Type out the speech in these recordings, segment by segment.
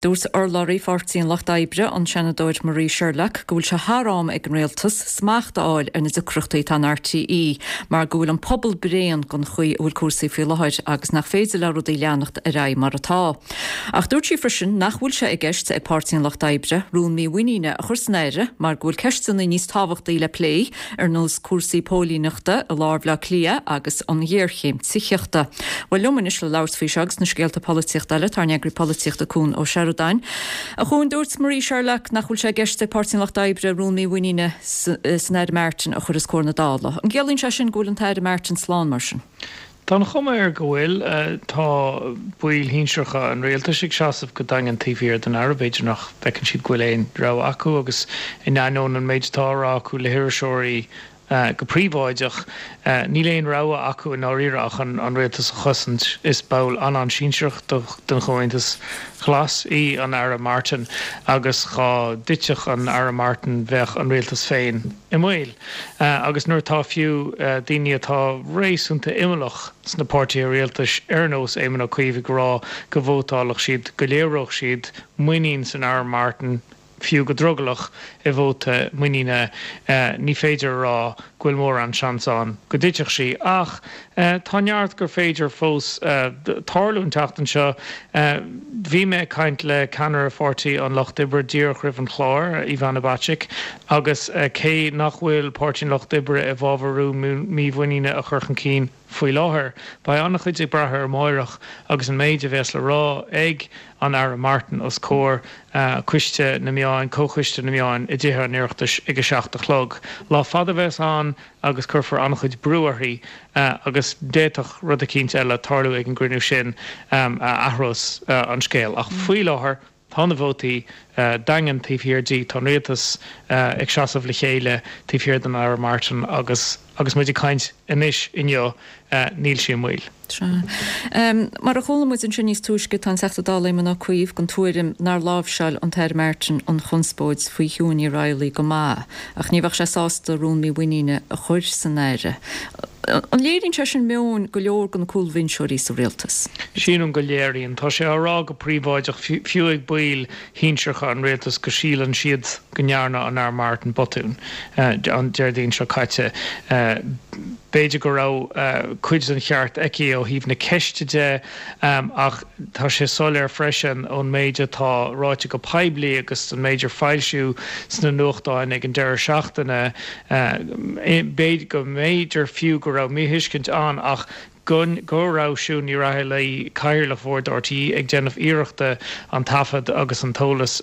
Dúirt urlabhraí Pháirtí an Lucht Oibre, an Seanadóir Marie Sherlock, go bhfuil sé thar am ag an Rialtas smacht a fháil ar na deacrachtaí atá in RTÉ mar go bhfuil an pobal bréan den chaoi a bhfuil cúrsaí faoi láthair agus nach féidir le rudaí leanacht ar aghaidh mar atá. Ach dúirt sí freisin nach bhfuil sé i gceist ag Páirtí an Lucht Oibre rún mímhuiníne a chur san áireamh mar go bhfuil ceisteanna níos tábhachtaí le plé ar nós cúrsaí póilíneachta i lár Bhaile Átha Cliath agus an ghéarchéim tithíochta. Bhuel, liom anois le labhairt faoi seo agus na scéalta polaitíochta eile, tá ár n-eagraí polaitíochta Cuan Ó Seireadáin. A Chuain, dúirt Marie Sherlock nach bhfuil sé i gceist ag Páirtí an Lucht Oibre rún mímhuiníne san Aire Martin a chur os comhair na Dála. An gciallaíonn sé sin go bhfuil an tAire Martin slán mar sin? Tá an chuma air go bhfuil. Tá baill shinsearacha an rialtais ag seasamh go daingean taobh thiar den Aire. B'fhéidir nach bhfeiceann siad go bhfuil aon rogha acu agus in ainneoin an méid atá á rá acu le hiriseoirí go príobháideach, níl aon rogha acu i ndáiríre ach an rialtas a chosaint. Is ball an-an-sinsearach den Chomhaontas Glas í an Aire Martin agus dhá dtitfeadh an Aire Martin bheadh an rialtas féin i mbaol. Agus nuair atá fiú daoine atá réasúnta imeallach sna páirtithe rialtais ar nós Éamon Ó Cuív ag rá go vótálfadh siad, go léireodh siad muinín san Aire Martin, fiú go drogallach, i vóta muiníne, ní féidir a rá go bhfuil mórán seans ann go dtitfeadh sí. Ach tá neart gur féidir fós tarlú an tseachtain seo. Bhí mé ag caint le ceannaire Pháirtí an Lucht Oibre díreach roimh an chlár, Ivana Bacik, agus cé nach bhfuil Páirtí an Lucht Oibre i bhfabhar rún mímhuiníne a chur chun cinn faoi láthair, beidh an-chuid ag brath ar amáireach agus an méid a bheas le rá ag an Aire Martin os comhair Coiste na Meáin, Comhchoiste na Meáin i dTithe an Oireachtais ag 7 a chlog. Lá fada a bheas ann agus cuirfear an-chuid brú uirthi agus d'fhéadfadh rud eicínt eile tarlú ag an gcruinniú sin a athrós an scéal. Ach faoi láthair tá na vótaí daingean taobh thiar di, tá an rialtas ag seasamh le chéile taobh thiar den Aire Martin agus agus muid ag caint anois inniu níl sí i mbaol. Sea. Mar a chuala muid ansin níos túisce, tá an Teachta Dála Éamon Ó Cuív den tuairim nár láimhseáil an tAire Martin an chonspóid faoi Shiún Ní Raghallaigh go maith, ach ní bheadh sé sásta rún mímhuiníne a chur san áireamh. An léiríonn sé sin meon go leor de na cúlbhinseoirí sa rialtas? Sílim go léiríonn. Tá sé á rá go príobháideach, fiú ag baill shinsearacha an rialtais, go síleann siad go ndearna an Aire Martin botún an Déardaoin seo caite. B'fhéidir go raibh cuid den cheart aici ó thaobh na ceiste de ach tá sé soiléir freisin ón méid atá ráite go poiblí agus an méid ar foilsíodh sna nuachtáin ag an deireadh seachtaine, go mb'fhéidir fiú go raibh míthuiscint ann ach go go raibh Siún Ní Raghallaigh, Cathaoirleach Bhord RTÉ, ag déanamh iarrachta an taifead agus an t-eolas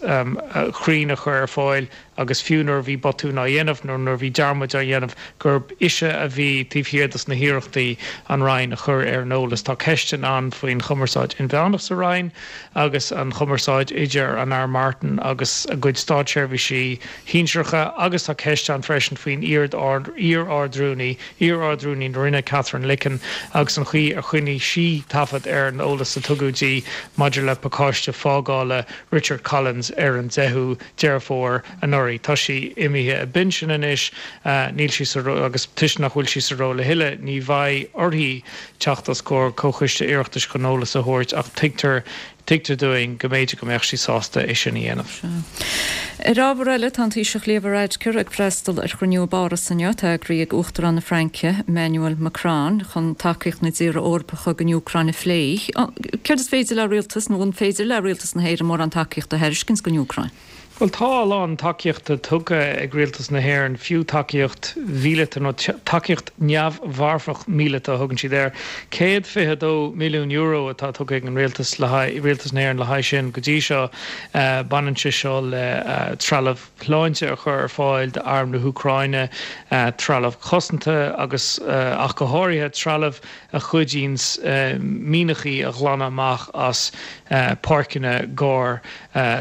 cruinn a chur ar fáil agus fiú nuair a bhí botún á dhéanamh nó nuair a bhí dearmaid á dhéanamh, gurb ise a bhí taobh thiar dos na hiarrachtaí an Roinn a chur ar an eolas. Tá ceisteanna ann faoin chumarsáid inmheánach sa Roinn agus an chumarsáid idir an Aire Martin agus a gcuid státseirbhísigh shinsearacha agus tá ceist ann freisin faoin iar-Ard-Rúnaí, iar-Ard-Rúnaí na Roinne, Katherine Licken, agus an chaoi ar choinnigh sí taifead ar an eolas a tugadh di maidir le pacáiste fágála Richard Collins ar an 10ú Deireadh Fómhair anuraidh. Tá sí imithe i bpinsean anois, níl sí sa agus toisc nach bhfuil sí sa ról a thuilleadh, ní bheidh uirthi teacht os comhair Comhchoiste Oireachtais chun eolas a thabhairt ach tuigtear tuigtear dúinn go mb'fhéidir go mbeadh sí sásta é sin a dhéanamh. Ar ábhar eile, tá an Taoiseach Leo Varadkar ag freastal ar chruinniú i bPáras inniu, atá eagraithe ag Uachtarán na Fraince, Emmanuel Macron, chun tacaíocht na dtíortha Eorpacha don Úcráin a phlé. Céard is féidir le rialtas, nó an féidir le rialtas na hÉireann mórán tacaíochta a thairiscint don Úcráin? Bhuel, tá a lán tacaíochta tugtha ag rialtas na hÉireann, fiú tacaíocht mhíleata, nó tacaíocht neamh-mharfach míleata a thugann siad air. €122 milliún atá tugtha ag an rialtas le haghaidh, rialtas na hÉireann le haghaidh sin go dtí seo. Baineann sé seo le trealamh sláinte a chur ar fáil d'arm na hÚcráine, trealamh cosanta agus ach go háirithe trealamh a chuidíonns mianachaí a ghlanadh amach as páirceanna gar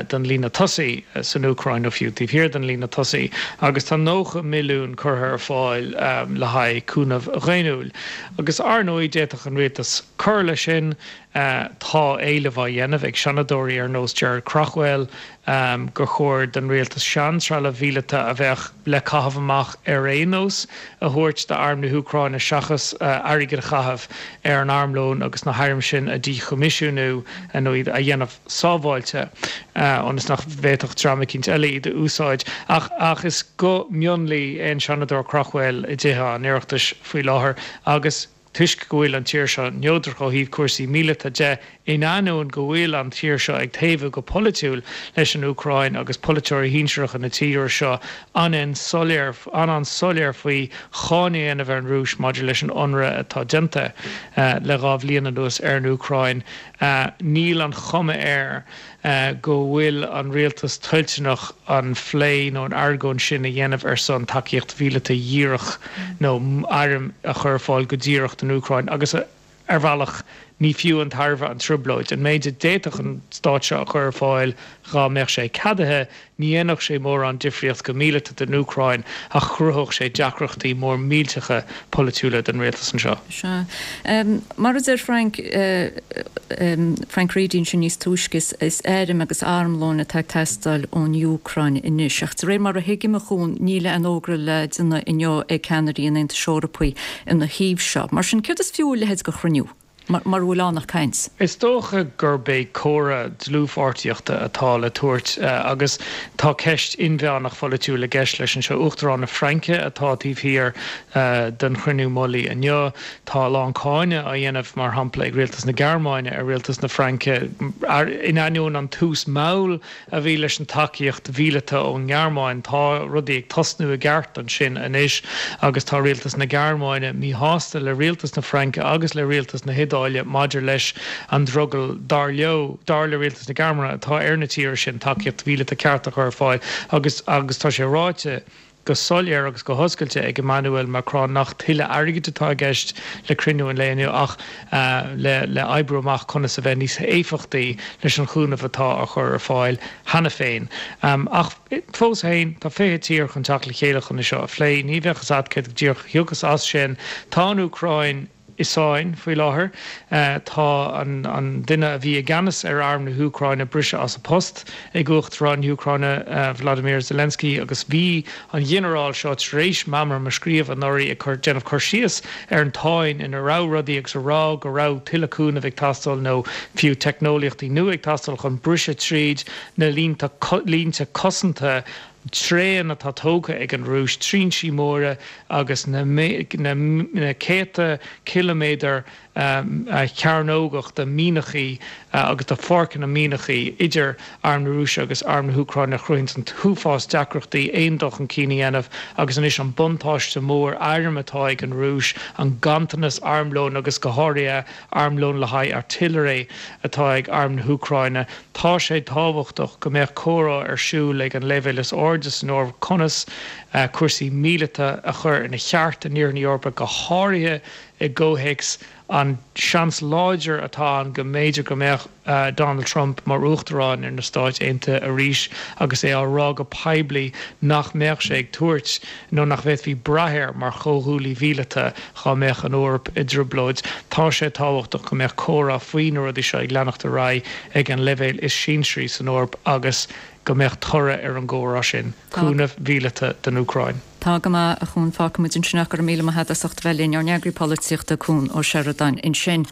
don líne tosaigh san Úcráin nó fiú taobh thiar den líne tosaigh, agus tá 90 milliún curtha ar fáil le haghaidh cúnamh dhaonnúil. Agus ar ndóigh d'fhéadfadh an rialtas cur leis sin. Tá éileamh á dhéanamh ag seanadóirí ar nós Gerard Craughwell gur chóir don rialtas seantrealamh mhíleata a bheadh le caitheamh amach ar aon nós a thabhairt d'arm na hÚcráine seachas airgead a chaitheamh ar an armlón agus na hairm sin a dhíchoimisiúnú nó iad a dhéanamh sábháilte ionas nach bhféadfadh dream eicínt eile iad a úsáid. Ach is guth mionlaigh é an Seanadóir Craughwell i dTithe an Oireachtais faoi láthair agus toisc go bhfuil an tír seo neodrach ó thaobh cúrsaí míleata de, in ainneoin go bhfuil an tír seo ag taobhú go polaitiúil leis an Úcráin agus polaiteoirí shinsearacha na tíre seo an-soiléir an-soiléir faoi cháineadh a dhéanamh ar an Rúis maidir leis an ionradh atá déanta le 2 bhliain anuas ar an Úcráin. Níl an chuma air go bhfuil an rialtas toilteanach an phlé nó an argóint sin a dhéanamh ar son tacaíocht mhíleata dhíreach nó airm a chur ar fáil go díreach don Úcráin agus ar bhealach ní fiú an tairbhe an trioblóid. An méid a d'fhéadfadh an stát seo a chur ar fáil dhá mbeadh sé ceadaithe, Ní dhéanfadh sé mórán difríocht go míleata don Úcráin ach chruthódh sé deacrachtaí mór millteacha polaitiúla don rialtas anseo. Sea. Mar a deir Frank, Frank Reidy ansin níos túisce, is airm agus armlón atá ag teastáil ón Úcráin anois. Ach de réir mar a thuigim, a Chuain, níl aon fhógra le déanamh inniu ag ceannairí an Aontais Eorpaigh ina thaobh seo. Mar sin, céard is fiú a leithéid de chruinniú? Mura bhfuil ann ach caint. Is dócha gurb é comhartha dlúthpháirtíochta atá le tabhairt agus tá ceist inmheánach pholaitiúil i gceist leis anseo. Uachtarán na Fraince atá taobh thiar den chruinniú mullaigh inniu. Tá a lán cáineadh á dhéanamh, mar shampla, ag rialtas na Gearmáine ar rialtas na Fraince in ainneoin an tús mall a bhí leis an tacaíocht mhíleata ón nGearmáin. Tá rudaí ag tosnú i gceart ansin anois agus tá rialtas na Gearmáine míshásta le rialtas na Fraince agus le rialtas na hIodáile maidir leis an drogall, dar leo, dar le rialtas na Gearmáine, atá ar na tíortha sin tacaíocht mhíleata ceart a chur ar fáil agus agus tá sé ráite go soiléir agus go hoscailte ag Emmanuel Macron nach tuilleadh airgid atá i gceist le cruinniú an lae inniu ach le le oibriú amach conas a bheith níos éifeachtaí leis an chúnamh atá á chur ar fáil cheana féin. Ach fós féin, tá 20 tír chun teacht le chéile chun é seo a phlé. Ní bheadh fhios agat céard go díreach a thiocfas as sin. Tá an Úcráin. i sáinn faoi láthair. Tá an duine a bhí i gceannas ar arm na hÚcráine briste as a post ag Uachtarán na hÚcráine Volodymyr Zelensky agus bhí an ghinearál seo tar éis meamram a scríobh anuraidh ag cur déanamh cur síos ar an tsáinn ina raibh rudaí agus a rá go raibh tuilleadh cúnaimh ag teastáil nó fiú teicneolaíochtaí nua ag teastáil chun briseadh tríd na línte cosanta tréan atá tógtha ag an Rúis, trinsí móra agus na céadta ciliméadar cearnógach de mhianachaí agus de pháirceanna mianachaí idir arm na Rúise agus arm na hÚcráine a chruthaíonns an t-uafás deacrachtaí aon dul chun cinn a dhéanamh agus anois an buntáiste mór airm atá ag an Rúis, an ganntanas armlóin agus go háirithe armlón le haghaidh artillery atá ag arm na hÚcráine. Tá sé tábhachtach go mbeadh comhrá ar siúl ag an leibhéal is airde san Eoraip conas cúrsaí míleata a chur ina cheart in Iarthar na hEorpa, go háirithe i gcomhthéacs an seans láidir atá ann go mb'fhéidir go mbeadh Donald Trump mar Uachtarán ar na Stáit Aontaithe arís agus é á rá go poiblí nach mbeadh sé ag tabhairt nó nach bhféadfaí brath air mar chomhghuaillí mhíleata dhá mbeadh an Eoraip i dtrioblóid. Tá sé tábhachtach go mbeadh comhrá faoi na rudaí seo ag leanacht ar aghaidh ag an leibhéal is sinsearaí san Eoraip agus go mbeadh toradh ar an gcomhrá sin, cúnamh mhíleata don Úcráin. Tá go maith, a Chuan. Fágfaimid ansin é. Go raibh míle maith agat as ucht a bheith linn. Ár n-eagraí polaitíochta, Cuan Ó Seireadáin, ansin.